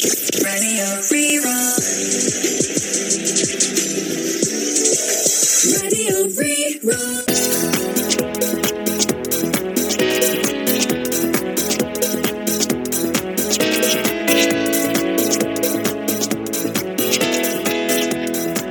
Radio Rí-Rá. Radio Rí-Rá.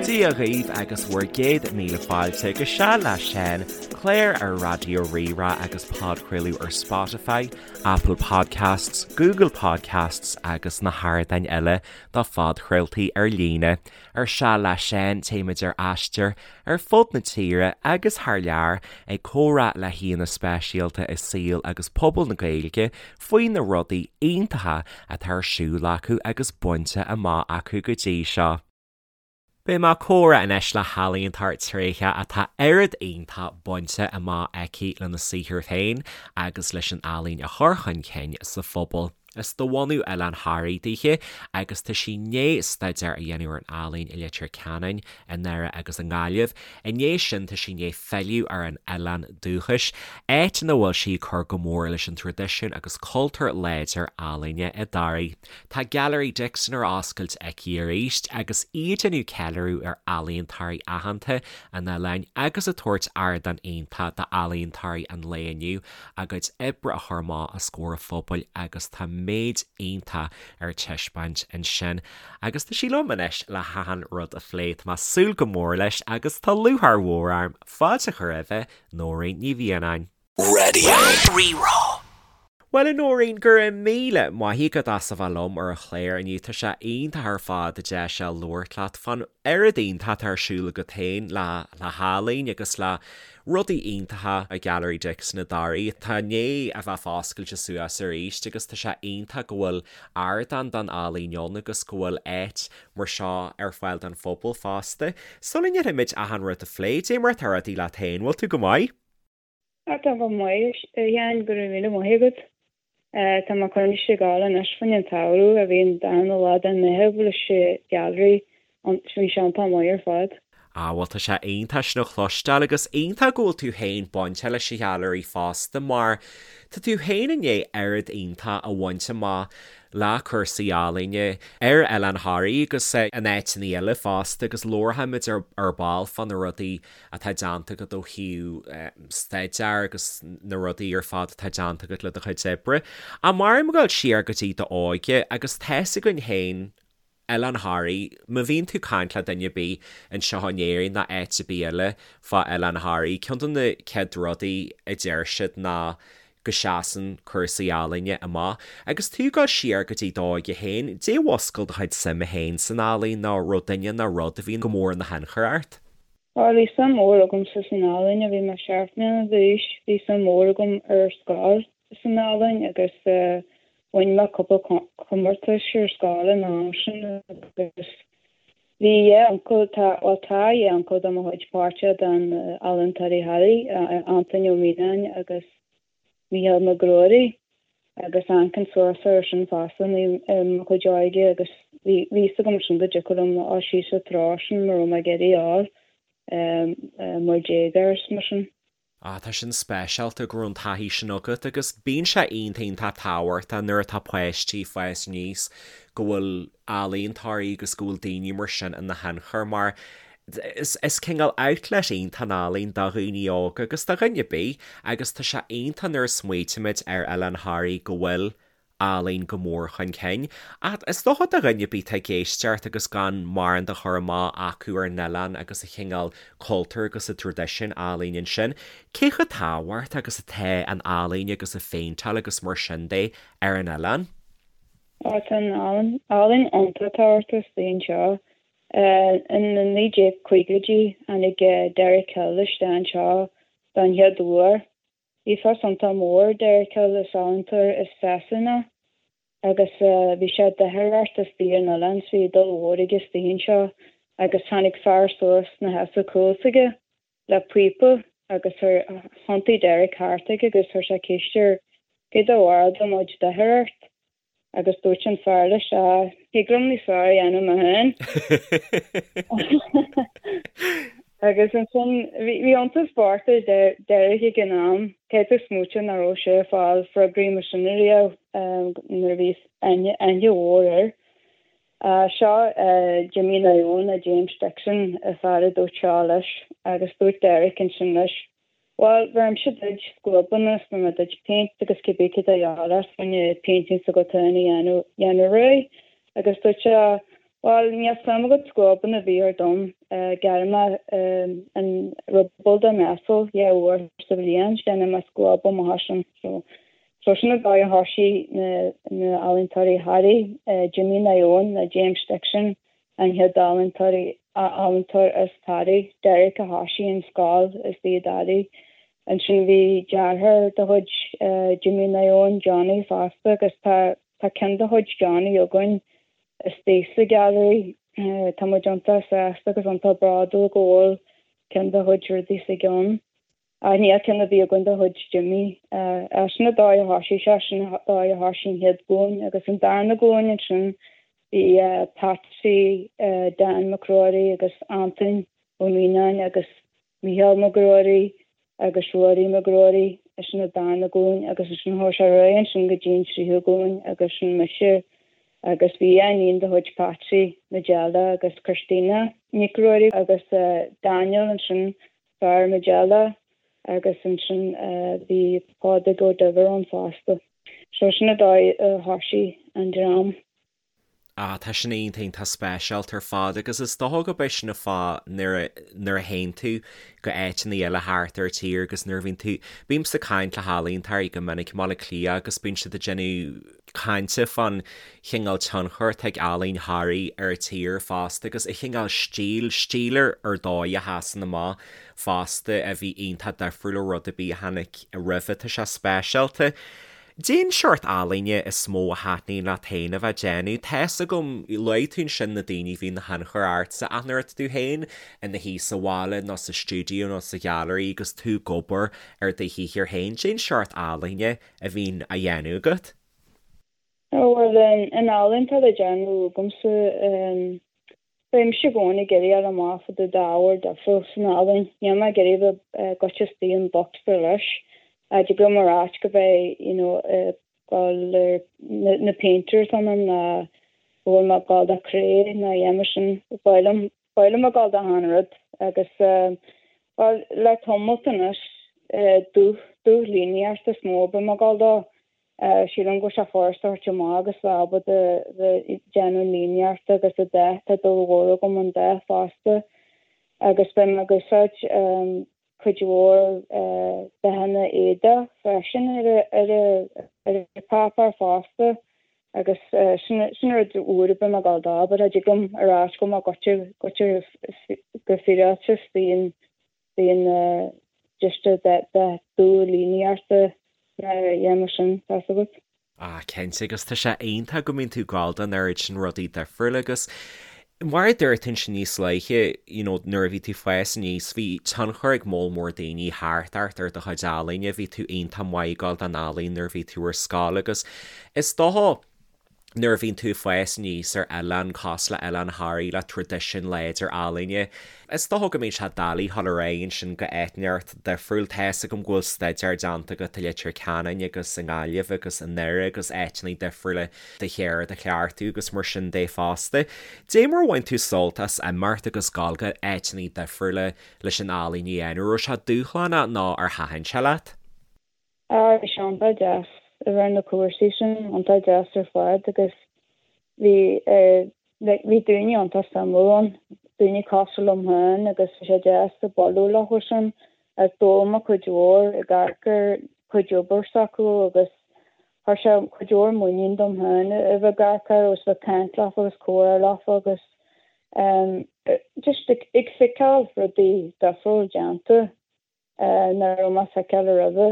Dia dhaoibh agus bhur gcéad míle fáilte go Seal le Seán, clár ar Raidió Rí-Rá agus podchraoladh ar Spotify, Apple Podcasts, Google Podcasts agus na hardáin eile do phodchraoltaí ar líne. Ar Seal le Seán téimid ar aistear ar fud na tíre agus thar lear ag comhrá le haíonna speisialta i saol agus pobal na Gaeilge faoi na rudaí iontacha atá ar siúl acu agus bainte amach acu go dtí seo. Beidh mé ag comhrá anois le healaíontóir tréitheach atá oiread iontach bainte amach aici lena saothar féin agus leis an ealaín a chur chun cinn sa phobal. Is de bhunadh Oileán Thoraí dithe agus tá sí i ndiaidh staidéar a dhéanamh ar an ealaín i Leitir Ceanainn, i nDoire agus i nGaillimh. I ndiaidh sin tá sí i ndiaidh filleadh ar an oileán dúchais, áit ina bhfuil sí ag cur go mór leis an traidisiún agus cultúr láidir ealaíne i dToraigh. Tá Gailearaí Dixon ar oscailt aici arís agus í ag déanamh ceiliúradh ar ealaíontóirí aitheanta an oileáin agus ag tabhairt ardán iontach d'ealaíontóirí an lae inniu a gcuid oibre a chur amach os comhair an phobail agus tá méid iontach ar taispeáint ansin agus tá sí liom anois le hachan rud a phlé. Tá mé ag súil go mór leis agus tá lúcháir mhór orm fáilte a chur roimhe, Nóirín Ní Mhianáin. Radio Rí-Rá. Bhuel a Nóirín, go raibh míle maith agat as a bheith liom ar an chlár inniu. Tá sé iontach ar fad an deis seo labhairt leat fán oiread iontach atá ar siúl agat féin le le healaín agus le rudaí iontacha i Gailearaí Dixon i dToraigh. Tá i ndiaidh a bheith foscailte suas arís agus tá sé iontach go bhfuil ardán don ealaín ann agus go bhfuil áit mar seo ar fáil don phobal fosta. Sula ndéanfaimid achan rud a phlé, dé mar atá rudaí leat féin, bhfuil tú go maith? Tá go maith, a Sheáin, go raibh míle maith agat. Tá mé coinnithe ag gabháil anois fán an tsamhradh a bhí an darna lá den Meitheamh leis an Ghailearaí, bhí sé iontach maith ar fad. Ah bhuel tá sé iontach sin a chloisteáil agus iontach go bhfuil tú féin bainte leis an Ghailearaí fosta mar tá tú féin i ndiaidh oiread iontach a bhaint amach le cúrsaí ealaíne ar Oileán Thoraí agus in áiteanna eile fosta agus labharfaimid ar ball fá na rudaí atá déanta agat ó thaobh staidéar agus na rudaí ar fad atá déanta agat le do chuid oibre. Ach mar ag dul siar go dtí d'óige agus tá's againn féin Oileán Thoraí, má bhíonn tú ag caint le duine ar bith anseo in Éirinn ná áit ar bith eile fá Oileán Thoraí, ceann de na chéad rudaí a deir siad ná go seasann cúrsaí ealaíne amach. Agus tú ag dul siar go dtí d'óige féin, dé mhuscail do chuid suime féin san ealaín nó raibh duine nó rud a bhí go mór ina thionchar ort? Bhuel, bhí suim mhór agamsa san ealaín ó bhí mé seacht mbliana d'aois. Bhí suim mhór agam ar scoil san ealaín agus bhain mé cúpla comórtais ar scoil an am sin agus bhí dhá uncail, tá, bhuel tá dhá uncail de mo chuid páirteach den Ealaíontóirí Thoraí, Antaine Ó Mianáin agus Mícheál Mac Ruairí agus amharcainn suas air sin fosta i mo chuid óige agus bhí fhios agam sin go dtiocfadh liom a dhul síos sa treo sin mura raibh mé ag iarraidh a fháil mar déagóir is mar sin. Ah, tá sin speisialta go raibh an taithí sin agat agus bíonn sé iontach iontach tábhachtach nuair atá páistí ag fás aníos go bhfuil ealaíontóirí agus go bhfuil daoine mar sin ina thionchar mar is cineál outlet iontach an ealaín do dhaoine óga agus do dhuine ar bith agus tá sé iontach nuair a smaoitímid ar Oileán Thoraí go bhfuil ealaín go mór chun cinn. Ach is dócha do dhuine ar bith atá ag éisteacht agus gan mórán de chur amach acu ar an oileán agus an chineál cultúir agus an traidisiún ealaíne ansin, cé chomh tábhachtach agus atá an ealaín agus an phéinteáil agus mar sin de ar an oileán? Tá an ealaín iontach tábhachtach istigh anseo. In na 1950idí tháinig Derek Hill isteach anseo don chéad uair. Bhí fios iontach mór ar Derek Hill, is ealaíontóir as Sasana agus bhí sé ag doitheoireacht istigh ar an oileán so bhí dúil mhór aige istigh anseo agus tháinig fear suas 'na sheasamh cúl s'aige le píopa agus thiontaigh Derek thart aige agus chuir sé ceist air cad é do bharr dá mbeadh doitheoireacht Agus dúirt an fear leis, Á, thig liom níos fearr a dhéanamh mé féin. Agus ansin, bhí iontas bocht ar Derek ag an am, caithfidh tú smaoitiú nach raibh sé ag fáil freagraí mar sin ariamh nuair a bhí aithne mhór air. Seo Jimmy Naoin nó James Dixon an fear a dúirt seo leis agus dúirt Derek ansin leis, Bhuel, bheirimse duid scuabanna is bheir mé duit péint agus cibé céard a dhíobháil ort fá choinne painting s'agat féin a dhéanamh dhéanamh réidh. Agus dúirt sé, Bhuel, níl suim agat scuabanna a bhí ar dom, gearrfaidh mé an ruball de m'asal dhá uair sa bhliain, déanfaidh mé scuab amach as sin. So, so sin an dóigh a thoisigh na na ealaíontóirí Thoraí, Jimmy Naoin nó James Dixon, an chéad ealaíontóirí, ealaíontóir as Toraigh, Derek a thoisigh an scoil istigh i dToraigh. Ansin bhí deartháir de chuid Jimmy Naoin, Johnny, fosta agus tá tá ceann de chuid Johnny againn istigh sa Gailearaí. Tá muid iontach sásta agus iontach bródúil go bhfuil ceann dá chuid rudaí istigh ann. Ach níl ceann ar bith againn de chuid Jimmy. Sin an dóigh a thoisigh sé, sin an dóigh a thoisigh an chéad ghlúin agus an darna glúin ansin bhí Patsy, Dan Mac Ruairí agus Antain Ó Mianáin agus Mícheál Mac Ruairí agus Ruairí Mac Ruairí, sin an darna glúin agus ansin chuaigh sé ar aghaidh ansin go dtí an tríú glúin agus sin mise agus bhí iníon de chuid Patsy, Majella agus Christina Nic Ruairí agus Daniel ansin fear Majella agus ansin bhí Pádraig Ó Duibhir ann fosta. So sin an dóigh a thoisigh an dream. Ah, tá sin iontach, iontach speisialta ar fad agus is dócha go b'é sin an fáth nuair a, nuair a théann tú go áiteanna eile thart ar tír agus nuair a bhíonn tú, bímse ag caint le healaíontóirí go minic i mBaile Átha Cliath agus bíonn siad ag déanamh cainte fán chineál tionchair atá ag ealaín Thoraí ar an tír fosta agus an chineál stíl, stíl ar ar dóigh a sheasann amach fosta a bhí iontach difriúil ó rud ar bith a tháinig roimhe. Tá sé speisialta. Cén seort ealaíne is mó a thaitníonn leat féin a bheith ag déanamh? Tá's agam, luaigh tú ansin na daoine a bhí ina thionchar ortsa ach nuair atá tú féin ina shuí sa bhaile nó sa stiúideo nó sa ghailearaí agus tú ag obair ar do shaothar féin, cén seort ealaíne a bhíonn á dhéanamh agat? Bhuel, an ealaín atá le déanamh agamsa, bímse i gcónaí ag iarraidh fháil amach fá dtaobh d'ábhar difriúil san ealaín. Níl mé ag iarraidh a bheith goite istigh in bocsa leis. Tig liom a ráit go mbeidh, you know, ag dul ar na painters ionam ná go bhfuil mé ag dul do cré ná a dhath mar sin. Ba mhaith liom Ba mhaith liom a ghabháil d'achan rud agus, bhuel, le tamalt anois, dúch, dúch líníocht is mó a bím ag gabháil dó. Sílim go bhfuil sé furasta a thabhairt amach agus bheith ábalta bheith ag déanamh líníochta agus an dath, tá dúil mhór agam an dath fosta agus beidh mé ag úsáid cuid mhór dathanna éadaigh freisin ar an bpáipéar fosta agus sin sin rud úr a bím ag gabháil dó but tig liom a ráit go mbeadh goite goite go fíreáilte bíonn bíonn just dath dubh líníochta a dhéanamh sin, tá's agat. Ah, cinnte, agus tá sé iontach go mbíonn tú ag gabháil don oiread sin rudaí difriúla agus mar a dúirt tú ansin níos luaithe, you know, nuair a bhí tú ag fás aníos, bhí tionchar ag moll mór daoine thart ort ar do chuid ealaíne, bhí tú iontach maith ag gabháil don ealaín nuair a bhí tú ar scoil agus is dócha, nuair a bhíonn tú ag fás aníos ar oileán cosúil le Oileán Thoraí le traidisiún láidir ealaíne, is dócha go mbíonn sé doiligh dhul ar aghaidh ansin go áit inteacht difriúil. Tá's agam go bhfuil staidéar déanta agat i Leitir Ceanainn agus i nGaillimh agus i nDoire agus áiteanna difriúla do cheird a chleachtadh agus mar sin de fosta. Dé mar a bhain tú sult as imeacht agus dul go áiteanna difriúla leis an ealaín a dhéanamh? Raibh sé dúshlánach nó ar thaitin sé leat? Á, bhí sé iontach deas a bheith ar na cúrsaí sin, iontach deas ar fad agus bhí, like, bhí daoine iontach suimiúil ann, daoine cosúil liom féin agus bhí sé deas ag bualadh leo sin agus d'fhoghlaim mé cuid mhór ag amharc ar cuid obair s'acu agus chuir sé cuid mhór muinín dom féin a bheith ag amharc air agus bheith ag caint leofa agus comhrá leofa agus em, just ag, ag feiceáil rudaí difriúil déanta. nach raibh mé ag feiceáil roimhe.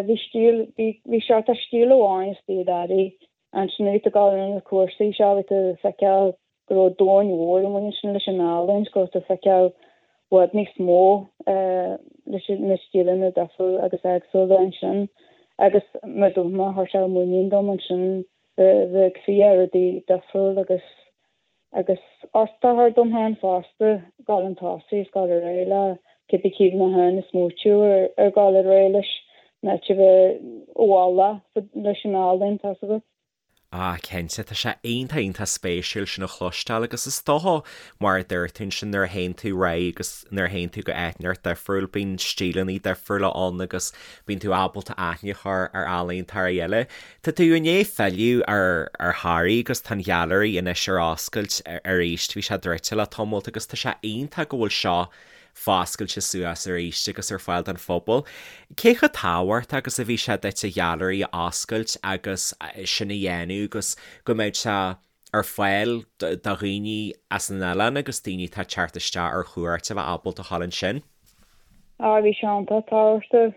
Bhí stíl, bhí seort of stíl amháin istigh i dToraigh. Ansin nuair a bhí tú ag dul ar na cúrsaí seo bhí tú ag feiceáil go raibh domhan mhór amuigh ansin leis an ealaín, go raibh tú ag feiceáil i bhfad níos mó leis na stíleanna difriúla agus éagsúla ansin. Agus mar a dúirt mé, chuir sé muinín dom ansin bheith ag fiach rudaí difriúil agus Agus ort a chur dom féin fosta, dul chun tosaigh is dul ar aghaidh le cibé cé mé féin ag smaoitiú ar dhul ar aghaidh leis in áit a bheith i bhfolach leis an ealaín, tá's agat. Ah, cinnte, tá sé iontach, iontach spéisiúil sin a chloisteáil agus is dócha, mar a dúirt tú ansin, nuair a théann tú ar aghaidh agus nuair a théann tú go áit inteacht difriúil, bíonn stíleanna difriúla ann agus bíonn tú ábalta aithne a chur ar ealaíontóirí eile. Tá tú i ndiaidh filleadh ar ar Thoraigh agus tá an ghailearaí anois ar oscailt arís, bhí sé druidte le tamalt agus tá sé iontach go bhfuil seo foscailte suas arís agus ar fáil don phobal. Cé chomh tábhachtach agus a bhí sé duit an ghailearaí a oscailt agus sin a dhéanamh agus go mbeadh sé ar fáil do dhaoine as an oileán agus daoine atá ag teacht isteach ar chuairt a bheith ábalta a ghabháil ansin? Á, bhí sé iontach tábhachtach.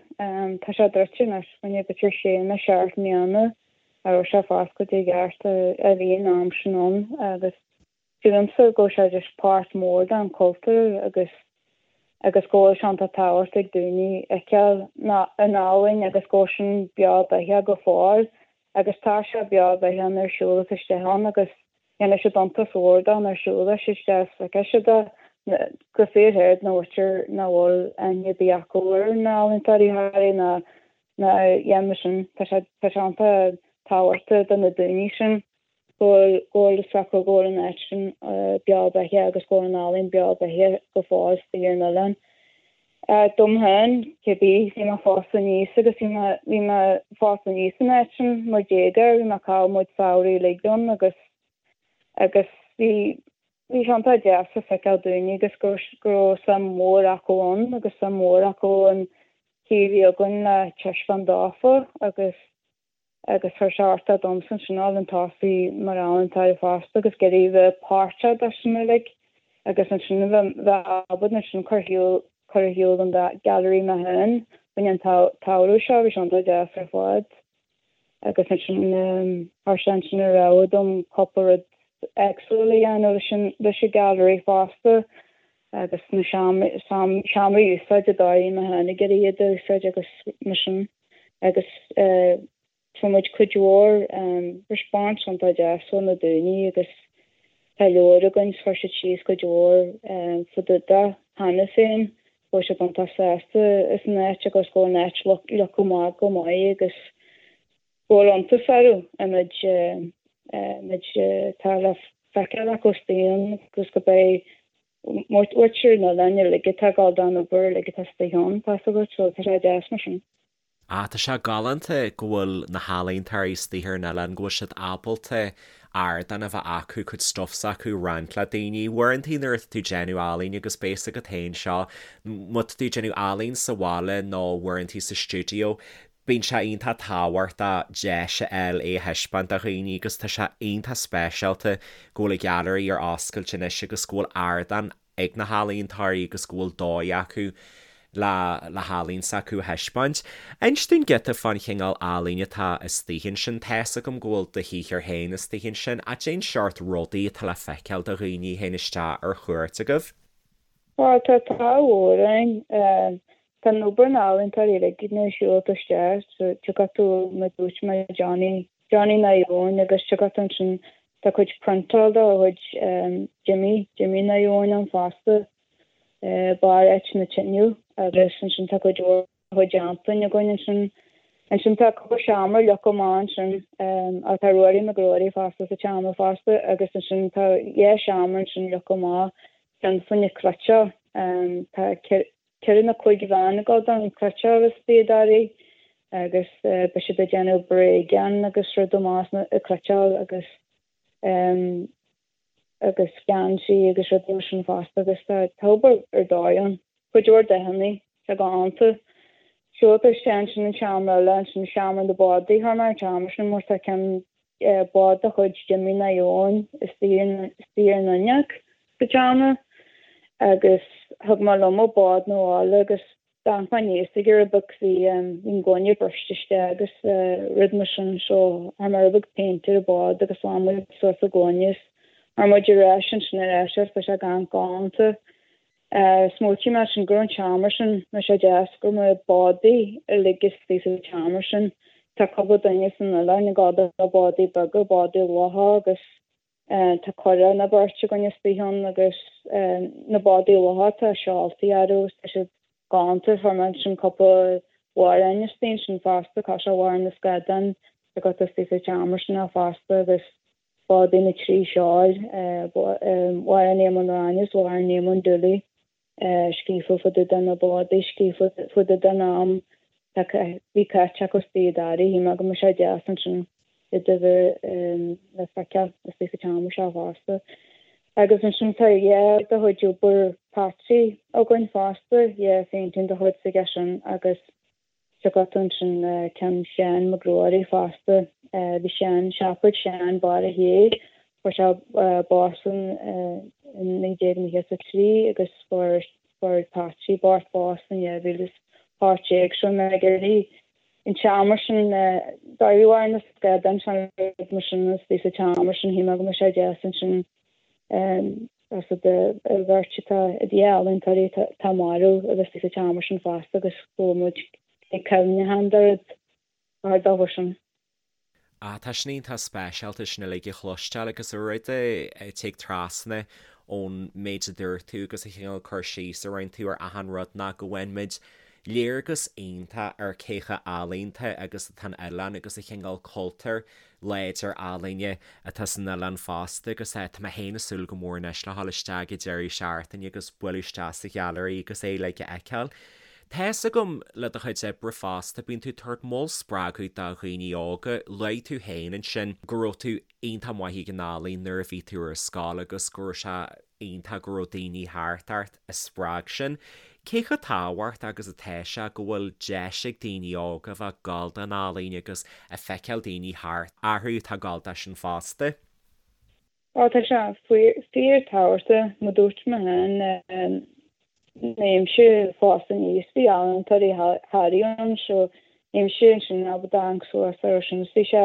Tá sé druidte anois, fá choinne b'fhéidir sé nó seacht mbliana a raibh sé foscailte i gceart a bhí an am sin ann agus Sílimse go bhfuil sé just páirt mór den chultúr agus agus go bhfuil sé iontach tábhachtach ag daoine fheiceáil an ealaín agus go bhfuil sin beo beathach go fóill agus tá sé beo beathach nuair a siúlas isteach ann agus dhéanfaidh siad iontas mhór dó nuair a siúlas siad isteach is feicfidh siad é go fíorshéard na mhuintir nach bhfuil aithne ar bith acu ar na ealaíontóirí Thoraí ná ná a dhéanamh sin tá sé tá sé iontach tábhachtach do na daoine sin. go bhfuil go bhfuil fhios acu go bhfuil an áit sin beo beathach agus go bhfuil an ealaín beo beathach go fóill istigh ar an oileán. Dom féin, cibé, bhí mé ag fás aníos agus bhí mé bhí mé ag fás aníos san áit sin mar déagóir, bhí mé ag caitheamh mo chuid samhraí uilig ann agus agus bhí bhí sé iontach deas a feiceáil daoine agus go go raibh suim mhór acu ann agus suim mhór acu an chaoi a bhí againn le taispeáint dófa agus agus chuir sé ardú domsa ansin a dhul chun tosaigh mar ealaíontóir fosta agus ag iarraidh bheith páirteach de sin uilig agus ansin a bheith bheith ábalta ansin cur shiúl cur ar shiúl an gallery mé féin fá choinne an tsamhradh seo bhí sé iontach deas ar fad agus ansin chuir sé ansin an rogha dom cúpla rud éagsúil a dhéanamh leis an leis an gallery fosta agus na seomraí a úsáid a dóigh mé féin ag iarraidh iad a úsáid agus mar sin. agus fuair muid cuid mhór response iontach deas ó na daoine agus tá leabhar againn 's chuir siad síos cuid mhór fá dtaobh de cheana féin, go bhfuil siad iontach sásta as an áit agus go bhfuil an áit leagtha amach go maith agus go bhfuil iontas orthu an méid méid atá le feiceáil acu istigh ann agus go beidh muintir an oileáin uilig atá ag gabháil don obair uilig atá istigh ann, tá 'fhios agat, so tá sé deas mar sin. Ah, tá sé galánta go bhfuil na healaíontóirí istigh ar an oileán, go bhfuil siad ábalta ardán a bheith acu, cuid stuff s'acu a roinnt le daoine. Uaireantaí nuair atá tú ag déanamh ealaíne agus beidh 'fhios agat féin seo, má tá tú ag déanamh ealaín sa bhaile nó uaireantaí sa stiúideo, Bíonn sé iontach tábhachtach deis a fháil é a thaispeáint do dhaoine agus tá sé iontach speisialta go bhfuil an ghailearaí ar oscailt anois agus go bhfuil ardán ag na healaíontóirí agus go bhfuil dóigh acu le le healaín s'acu a thaispeáint. Inis dúinn giota fán chineál ealaíne atá istigh ansin. Tá's agam go bhfuil do shaothar féin istigh ansin ach cén seort rudaí atá le feiceáil do dhaoine a théann isteach ar chuairt agaibh? Tá, tá tá mhór ann. Tá an obair na n-ealaíontóirí uilig nuair a siúlann tú isteach so tiocfaidh tú mar dúirt mé Johnny, Johnny Naomh Eoin agus tiocfaidh tú ansin tá cuid priontáil de chuid Jimmy, Jimmy Naomh Eoin ann fosta, barr áit na tineadh agus ansin tá cuid mhór de chuid Antoin againn ansin. Ansin tá cúpla seomra leagtha amach ansin ach tá Ruairí Mac Ruairí fosta sa tseomra fosta agus ansin tá dhá seomra ansin leagtha amach ceann fá choinne cleiteáil tá ceithre nó cúig bhean ag dul don chleiteáil istigh i dToraigh agus beidh siad ag déanamh bréagáin agus rud amach ag cleiteáil agus agus geansaí agus rudaí mar sin fosta agus tá obair ar dóigh ann. Cuid mhór dathanna, tá go hiontach. Siúl isteach ansin an seomra eile, ansin seomra na bádaí, chuir mé an seomra sin mar tá ceann bád de chuid Jimmy Naomh Eoin istigh ar an fhuinneog sa tseomra agus thug mé liom an bád 'na bhaile agus d'amharc mé aníos air rud beag bhí an gloine briste isteach agus rud mar sin so chuir mé rud beag péint ar an bád agus bhain muid suas an gloine is chuir muid ar ais ansin ar ais agus tá sé galánta. Smaoitigh mé ansin go raibh an tseomra sin, bhí sé deas go raibh na bádaí uilig istigh sa tseomra sin. Tá cúpla duine san oileán ag gabháil do bádaí beaga, bádaí locha agus tá curach nó beirt againn istigh ann agus na bádaí locha tá seoltaí orthu agus tá siad galánta. Chuir mé ansin cúpla amhrán istigh ansin fosta, cosúil Amhrán na Scadán. agat istigh sa tseomra sin fosta agus bádaí na dtrí seol, Mháire Ní Mhuireáin is Mháire Ní Mhundúlaigh scríofa fá dtaobh de na bádaí, scríofa fá dtaobh den am a bhí caite acu istigh i dToraigh. Shíl mé go mbeadh sé deas ansin iad a bheith le feiceáil istigh sa tseomra seo fosta. Agus ansin tá dhá de chuid obair Patsy againn fosta, dhá phéintéir de chuid s'aige sin agus Tá agat ansin ceann Sheáin Mac Ruairí fosta. Bhí Seán, siopa ag Seán Barra Thiar, fuair sé bás in 1993 agus fuair Patsy bocht bás in 2018 so mé ag iarraidh an tseomra sin dóibh ar na scadáin sin rud mar sin istigh sa tseomra sin shíl mé go mbeadh sé deas ansin as an bheirt atá i d'ealaíontóirí atá marbh a bheith sa tseomra sin fosta agus go bhfuil muid ag cuimhneachán dóibh ar dóigh sin. Ah, tá sin iontach speisialta sin uilig a chloisteáil agus an rud a tig trasna ón méid a dúirt tú agus an cineál cur síos a rinne tú ar achan rud ná go bhfaigheann muid léargas iontach ar cé chomh ealaíonta agus atá an oileán agus an cineál cultúr láidir ealaíne atá san oileán fosta agus tá mé féin ag súil go mór anois le dhul isteach ag deireadh seachtaine agus bualadh isteach sa ghailearaí agus é uilig a fheiceáil. Tá fhios agam le do chuid oibre fosta, bíonn tú ag tabhairt moll spreagadh do dhaoine óga, luaigh tú féin ansin go raibh tú iontach maith ag an ealaín nuair a bhí tú ar scoil agus go raibh sé iontach go raibh daoine thart ort a spreag sin. Cé chomh tábhachtach agus atá sé go bhfuil deis ag daoine óga a bheith ag gabháil don ealaín agus ag feiceáil daoine thart orthu atá ag gabháil dó sin fosta? Ó tá sé fíor tábhachtach, mar dúirt mé féin, bhí mise ag fás aníos, bhí ealaíontóirí Thoraí ann so bhí mise ansin ábalta amharc suas orthu sin is bhí sé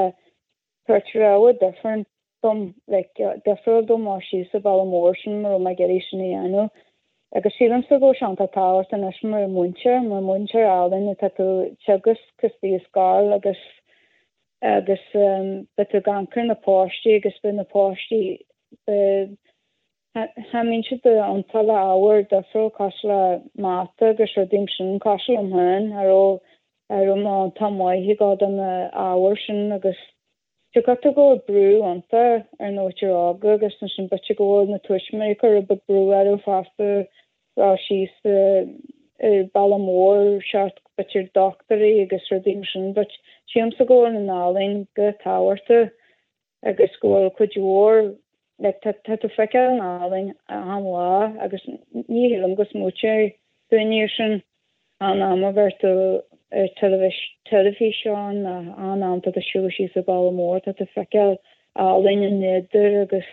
tabhairt rogha different dom, like, difriúil dom dul síos an bealach mór sin mura raibh mé ag iarraidh sin a dhéanamh. Agus sílimse go bhfuil sé iontach tábhachtach anois mar mhúinteoir, mar mhúinteoir ealaíne tá tú ag teagasc istigh i scoil agus agus beidh tú ag amharc ar na páistí agus beidh na páistí beidh Cha mbíonn siad iontach le ábhar difriúil cosúil le mata agus rudaí mar sin, cosúil liom féin, cha raibh cha raibh mé iontach maith ag dul do na ábhair sin agus tá go bhfuil brú iontach ar na muintir óga agus ansin b'fhéidir go bhfuil na tuismitheoirí ag cur rud beag brú orthu fosta dul síos ar bealach mór seort b'fhéidir dochtúirí agus rudaí mar sin but sílimse go bhfuil an ealaín go tábhachtach agus go bhfuil cuid mhór like tá tá tú feiceáil an ealaín achan lá agus ní shílim go smaoiteoidh daoine ar sin achan am a bheir tú ar teilifís teilifíseán nó achan am tá tú siúl síos an bealach mór tá tú feiceáil ealaín an nádúr agus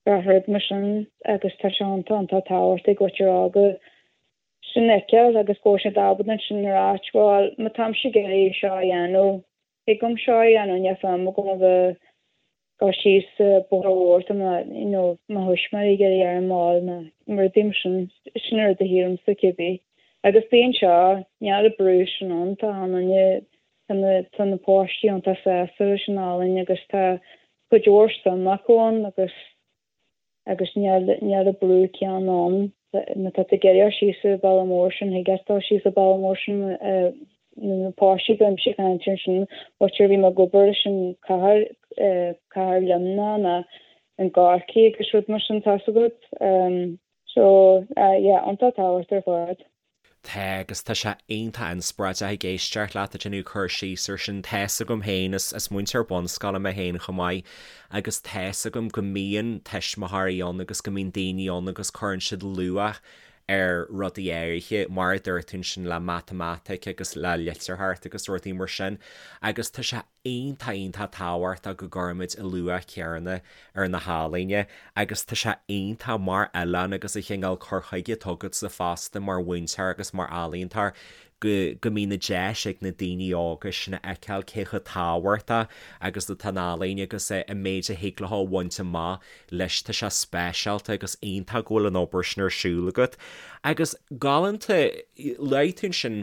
gach rud mar sin agus tá sé iontach iontach tábhachtach ag muintir óga sin a fheiceáil agus go bhfuil siad ábalta ansin a ráit bhuel má táimse ag iarraidh seo a dhéanamh Thig liom seo a dhéanamh, níl feidhm agam a bheith ag dul síos bóthar mhór tá mo, you know, mo thuismitheoirí ag iarraidh orm a fháil nó rudaí mar sin, sin an rud a shílimse cibé. Agus bíonn seo, níl an brú sin ann, tá an duine, tá na, tá na páistí iontach sásta leis an ealaín agus tá cuid mhór suim acu ann agus agus níl an brú céanna ann. Má tá tú ag iarraidh dul síos an bealach mór sin, thig leat dul síos an bealach mór sin na páistí bímse ag caint ansin, b'fhéidir bhí mé ag obair leis an cathair, cathair Luimneach nó i gCorcaigh agus rud mar sin, tá's agat. So, yeah, iontach tábhachtach ar fad. Tá, agus tá sé iontach inspioráideach ag éisteacht leat ag déanamh cur síos ar sin. Tá's agam féin, is is múinteoir bunscoile mé féin chomh maith, agus tá's agam go mbíonn tuismitheoirí ann agus go mbíonn daoine ann agus cuireann siad luach ar rudaí áirithe, mar a dúirt tú ansin le matamaitic agus le litearthacht agus rudaí mar sin, agus tá sé iontach iontach tábhachtach go gcuirimid an luach céanna ar na healaíona agus tá sé iontach mar oileán agus an cineál cur chuige atá agatsa fosta mar mhúinteoir agus mar ealaíontóir go go mbíonn an deis ag na daoine óga sin a fheiceáil cé chomh tábhachtach agus atá an ealaín agus an méid a thig leo a bhaint amach leis tá sé speisialta agus iontach go bhfuil an obair sin ar siúl agat agus galánta luaigh tú ansin.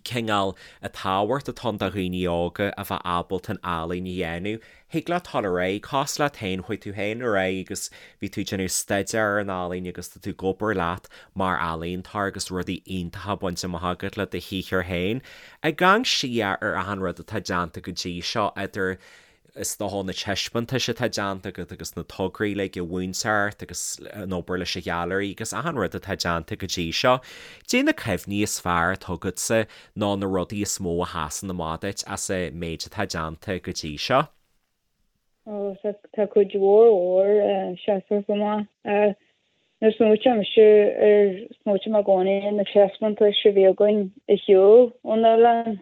Cineál an tábhacht atá ann do dhaoine óga a bheith ábalta an ealaín a dhéanamh. Thig leat dul ar aghaidh, cosúil leat féin, chuaigh tú féin ar aghaidh agus bhí tú ag déanamh staidéar ar an ealaín agus tá tú ag obair leat mar ealaíontóir agus rudaí iontacha bainte amach agat le do shaothar féin. Ag amharc siar ar achan rud atá déanta go dtí seo, idir is dócha na taispeántais atá déanta agat agus na tograí uilig an mhúinteoireacht agus an obair leis an ghailearaí agus achan rud atá déanta go dtí seo. Caidé na cuimhní is fearr atá agatsa nó na rudaí is mó a sheasann amach duit as an méid atá déanta go dtí seo? Ó, tá cuid mhór mhór seasamh amach. Nuair a smaoitíonn mise ar, smaoitím i gcónaí ar na taispeántais a bhí againn ar shiúl ón oileán.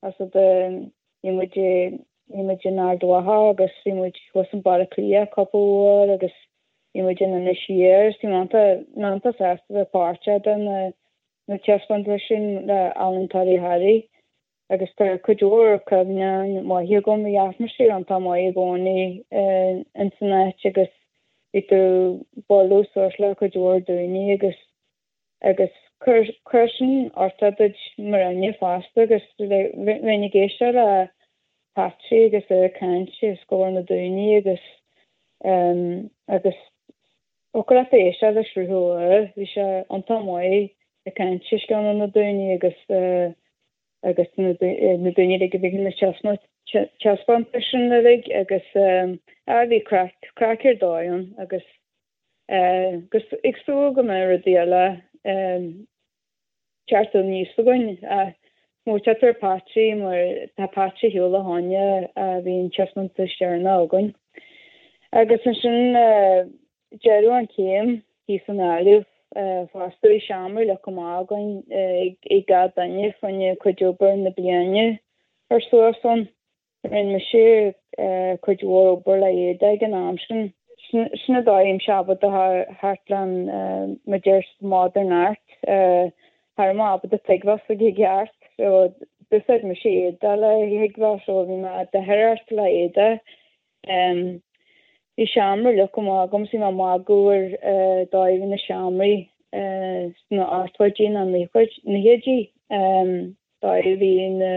As a bhí muid bhí muid in Ard Mhacha agus bhí muid thuas in Baile Átha Cliath cúpla uair agus bhí muid in Inis Oírr. Is bhí mé iontach sásta bheith páirteach de na na taispeántais sin le Ealaíontóirí Thoraí agus tá cuid mhór cuimhneáin maithe agam. Bhí atmaisféar iontach maith i gcónaí ins an áit agus bhí tú bualadh suas le cuid mhór daoine agus agus chuir sin uchtach duit mar dhuine fosta agus bheinn ag éisteacht le Patsy agus é ag caint os comhair na daoine agus agus thiocfadh leat éisteacht le sruth úr, bhí sé iontach maith ag caint os cionn na daoine agus agus na daoine uilig a bhí na taispeántais sin uilig agus bhí craic, craic ar dóigh ann agus Agus ag súil go mbeidh rudaí eile teacht aníos againn. Smaoiteoidh tú ar Patsy mar tá Patsy ar shiúl ó shoin a bhí an taispeántas deireanach againn. Agus ansin deireadh an chéim thíos i nGaillimh fosta bhí seomra leagtha amach againn ag gach duine fá choinne cuid obair na bliana a chur suas ann. Rinne mise cuid mhór obair le éadaí ag an am sin. Sin an dóigh a mbímse ábalta theacht le an mar deir modern art. Cha raibh mé ábalta tuigbheáil s'aige i gceart. So d'úsáid mise éadaí le thuigbheáil so bhí mé ag dearthóireacht le éadaí. Bhí seomra leagtha amach agam so bhí mé ag magadh ar dóigh a bhí na seomraí sna hochtóidí nó naochaidí. Dóigh a bhí na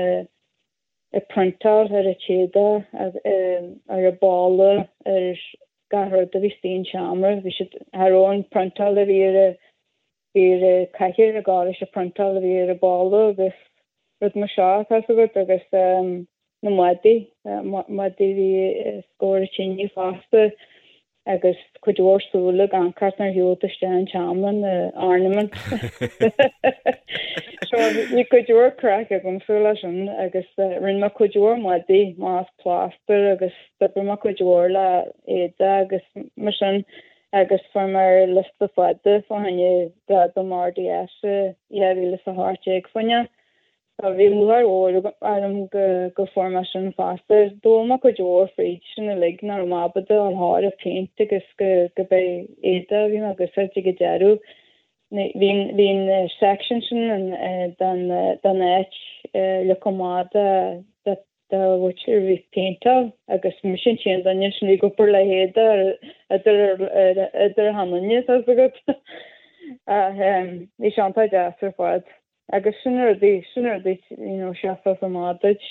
ag priontáil ar an téada, ar an balla, ar gach rud a bhí istigh an seomra. Bhí siad, cha raibh an priontáil a bhí ar a bhí ar an cathaoir ag gabháil leis an priontáil a bhí ar an balla agus rud mar seo, tá 'fhios agat, agus na maidí, maidí a bhí os comhair an tine fosta. agus cuid mhór súile ag amharc ort nuair a shiúil tú isteach an tseomra, na ornaments. So bhí cuid mhór craic agamsa leis sin agus rinne mé cuid mhór maidí amach as plástar agus d'oibrigh mé cuid mhór le éadaí agus mar sin agus fuair mé ar liosta fada fá choinne gradam RDS i 2018 fá choinne. Tá bhí lúcháir mhór orm go fuair mé sin fosta. D'fhoghlaim mé cuid mhór fríd sin uilig, nach raibh mé ábalta dul thar an péint agus go b'é éadaí a bhí mé ag úsáid ag an deireadh. Bhí bhí an section sin den den áit leagtha amach do do mhuintir a bhí ag péinteáil agus mise an t-aon duine sin a bhí ag obair le héadaí idir idir achan duine, tá 'fhios agat. Ach bhí sé iontach deas ar fad. Agus sin rudaí, sin rudaí, you know, seasfas amach duit,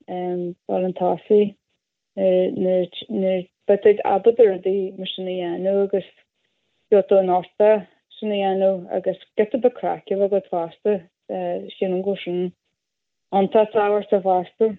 dul chun tosaigh, nuair, nuair, beidh tú ábalta rudaí mar sin a dhéanamh agus gheobhaidh tú an uchtach sin a dhéanamh agus giota beag craic a bheith agat fosta, sílim go bhfuil sin iontach tábhachtach fosta.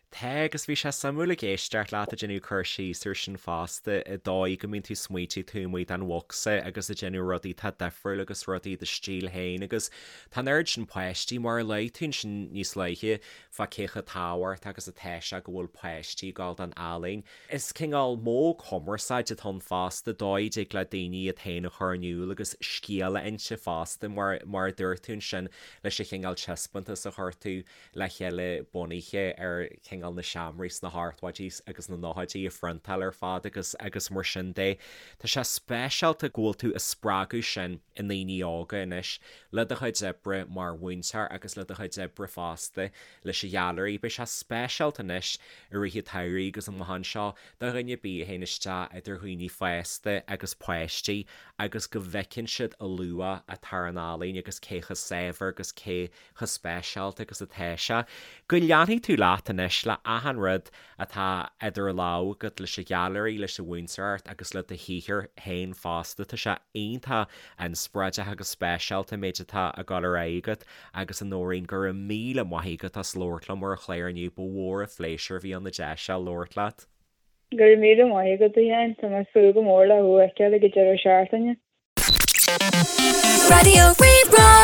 Tá, agus bhí sé suimiúil ag éisteacht leat ag déanamh cur síos ar sin fosta, an dóigh go mbíonn tú ag smaoitiú taobh amuigh den bhocsa agus ag déanamh rudaí atá difriúil agus rudaí i do stíl féin agus tá an oiread sin páistí, mar a luaigh tú ansin níos luaithe, fá cé chomh tábhachtach agus atá sé go bhfuil páistí ag gabháil don ealaín. Is cineál modh cumarsáide atá ann fosta, dóigh a dtig le daoine iad féin a chur in iúl agus scéal a inse fosta, mar mar a dúirt tú ansin leis an chineál taispeántas a chuir tú le chéile bunaithe ar chineál. cineál na seomraí sna hochtóidí agus na nóchaidí a phriontáil ar fad agus agus mar sin de. Tá sé speisialta go bhfuil tú ag spreagadh sin i ndaoine óga anois le do chuid oibre mar mhúinteoir agus le do chuid oibre fosta leis an ghailearaí. Beidh sé speisialta anois i rith an tsamhraidh agus amach anseo do dhuine ar bith a théann isteach idir dhaoine fásta agus páistí agus go bhfeiceann siad a luach atá ar an ealaín agus cé chomh saibhir agus cé chomh speisialta agus atá sé. Go leanfaidh tú leat anois le achan rud atá idir lámha agat leis an ghailearaí, leis an mhúinteoireacht agus le do shaothar féin fosta. Tá sé iontach inspioráideach agus speisialta an méid atá ag dul ar aghaidh agat agus a Nóirín, go raibh míle maith agat as labhairt liom ar an chlár inniu, ba mhór an phléisiúr a bhí ann an deis seo labhairt leat. Go raibh míle maith agat, a Sheáin. Tá mé ag súil go mór le thú a fheiceáil ag an deireadh seachtaine. Raidió Rí-Rá.